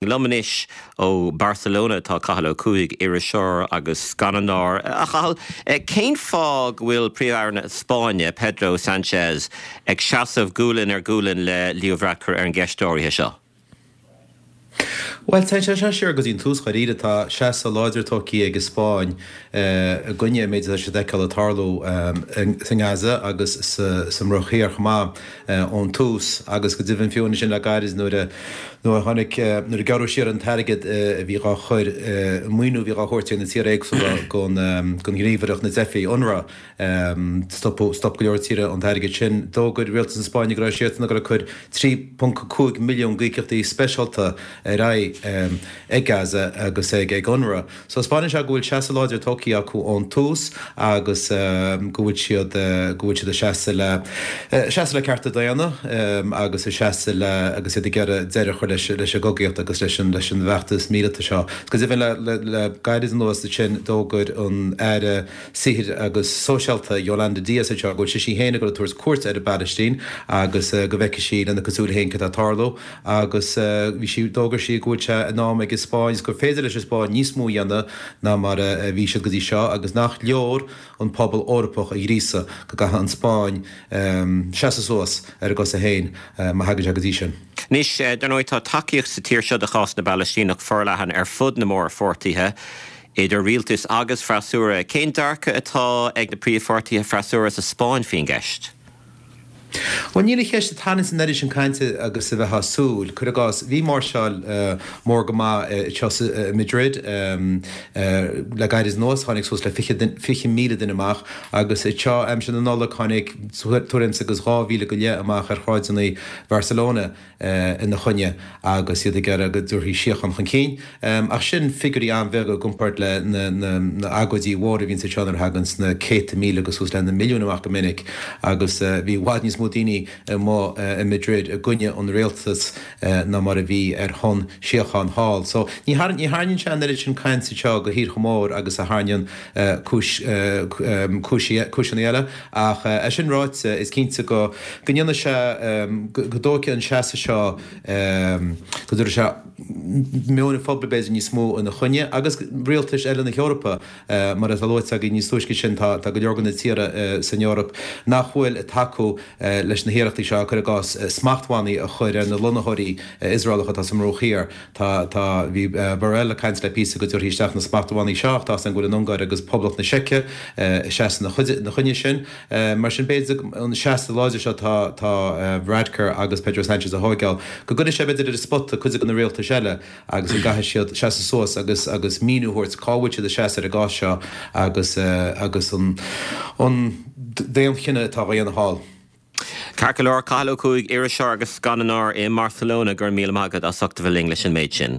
Liom anois ó Barcelona atá Cathal Ó Cuaig, iriseoir agus scannánóir. A Chathail, cén fáth go bhfuil Príomh-Aire na Spáinne, Pedro Sanchez, ag seasamh gualainn ar ghualainn le Leo Varadkar ar an gceist áirithe seo? Bhuel, téann sé seo siar go dtí an tús dháiríre. Tá seasamh láidir tógtha ag an Spáinn i gcoinne an méid atá siad ag feiceáil ag tarlú sa nGaza agus sa mBruach Thiar chomh maith. ón tús agus go deimhin fiú ansin le gairid nuair a nuair a tháinig nuair a gearradh siar an t-airgead a bhí dhá chur an maoiniú a bhí dhá thabhairt ag na tíortha éagsúla don don ghníomhaireacht na dteifigh UNRWA stop stop go leor tíortha an t-airgead sin. D'fhógair rialtas na Spáinne go raibh siadsan ag dul ag cur 3.5 milliún d'íocaíochtaí speisialta ar aghaidh ag Gaza agus ag ag UNRWA. So 'spáineann sé go bhfuil seasamh láidir tógtha acu ón tús agus go bhfuil siad, go bhfuil siad ag seasamh le, seasamh le cearta daonna agus ag seasamh le, agus iad ag iarraidh deireadh a chur leis, leis an gcogaíocht agus leis an, leis an bhfeachtas míleata seo. Go deimhin le, le, le gairid anuas ansin d'fhógair an Aire Saothair agus Sóisialta Yolanda Díaz anseo go bhfuil sise féin ag dul ag tabhairt cuairt ar an bPalaistín agus go bhfeicfidh sí lena cuid súile féin cad tá ag tarlú. Agus bhí sí, d'fhógair sí go bhfuil sé in am ag an Spáinn is gur féidir leis an Spáinn níos mó a dhéanamh ná mar a bhí siad go dtí seo agus nach leor an pobal Eorpach a ghríosadh, go gcaithfidh an Spáinn seasamh suas ar a gcosa féin má thagann sé go dtí sin. Anois, dar ndóigh, tá tacaíocht sa tír seo do chás na bPalaistíneach forleathan ar fud na mórpháirtithe, idir rialtas agus freasúra. Cén dearcadh atá ag na príomhpháirtithe freasúra sa Spáinn faoin gceist? Bhuel, níl an cheist ag tarraingt an oiread sin cainte agus a bheifeá ag súil. Cuir i gcás, bhí máirseáil mór go maith anseo i Madrid le gairid anuas, tháinig suas le 20,000 duine amach agus anseo aimsir na Nollag tháinig tuairim is agus 2,000 go leith amach ar shráideanna Bharcelona. ina choinne agus iad ag iarraidh go dtabharfaí síocháin chun cinn. Ach sin figiúirí an-bheaga i gcomparáid le na agóidí mhóra a bhíonns anseo nuair a thaganns na céadta míle agus suas le na milliúin amach go minic agus bhí i bhfad níos mó daoine amuigh i Madrid i gcoinne an rialtas ná mar a bhí ar shon síocháin thall. So ní tharraingíonn sé an oiread sin cainte anseo go thíortha mór agus a tharraingíonn cúis cúiseanna eile. Ach é sin ráite, is cinnte go ndéanfaidh sé, go dtógfaidh an seasamh seo, go dtabharfaidh sé meon an phobail b'fhéidir níos mó ina choinne agus rialtais eile na hEorpa, mar atá luaite againn níos túisce sin, tá go leor de na tíortha san Eoraip nach bhfuil ag tacú leis na hiarrachtaí seo, cuir i gcás, smachtbhannaí a chur ar na lonnaitheoirí Iosraelacha atá sa mBruach Thiar. Tá, tá, bhí Borrell ag caint le píosa go dtabharfaí isteach na smachtbhannaí seo ach tá 's againn go bhfuil an Ungáir agus Poblacht na Seice ag seasamh ina choinne sin. Mar sin b'fhéidir an seasamh láidir seo atá, tá Varadkar agus Pedro Sanchez a thóigeáil, go gcuirfidh sé b'fhéidir ar an spota cuid de na rialtais eile agus go gcaithfidh siad seasamh suas agus, agus míniú a thabhairt cá bhfuil siad ag seasamh ar an gcás seo agus, agus an, an daonchinneadh atá á dhéanamh thall. Ceart go leor, Cathal Ó Cuaig, iriseoir agus scannánóir i mBarcelona, go raibh míle maith agat as ucht a bheith linn leis an méid sin.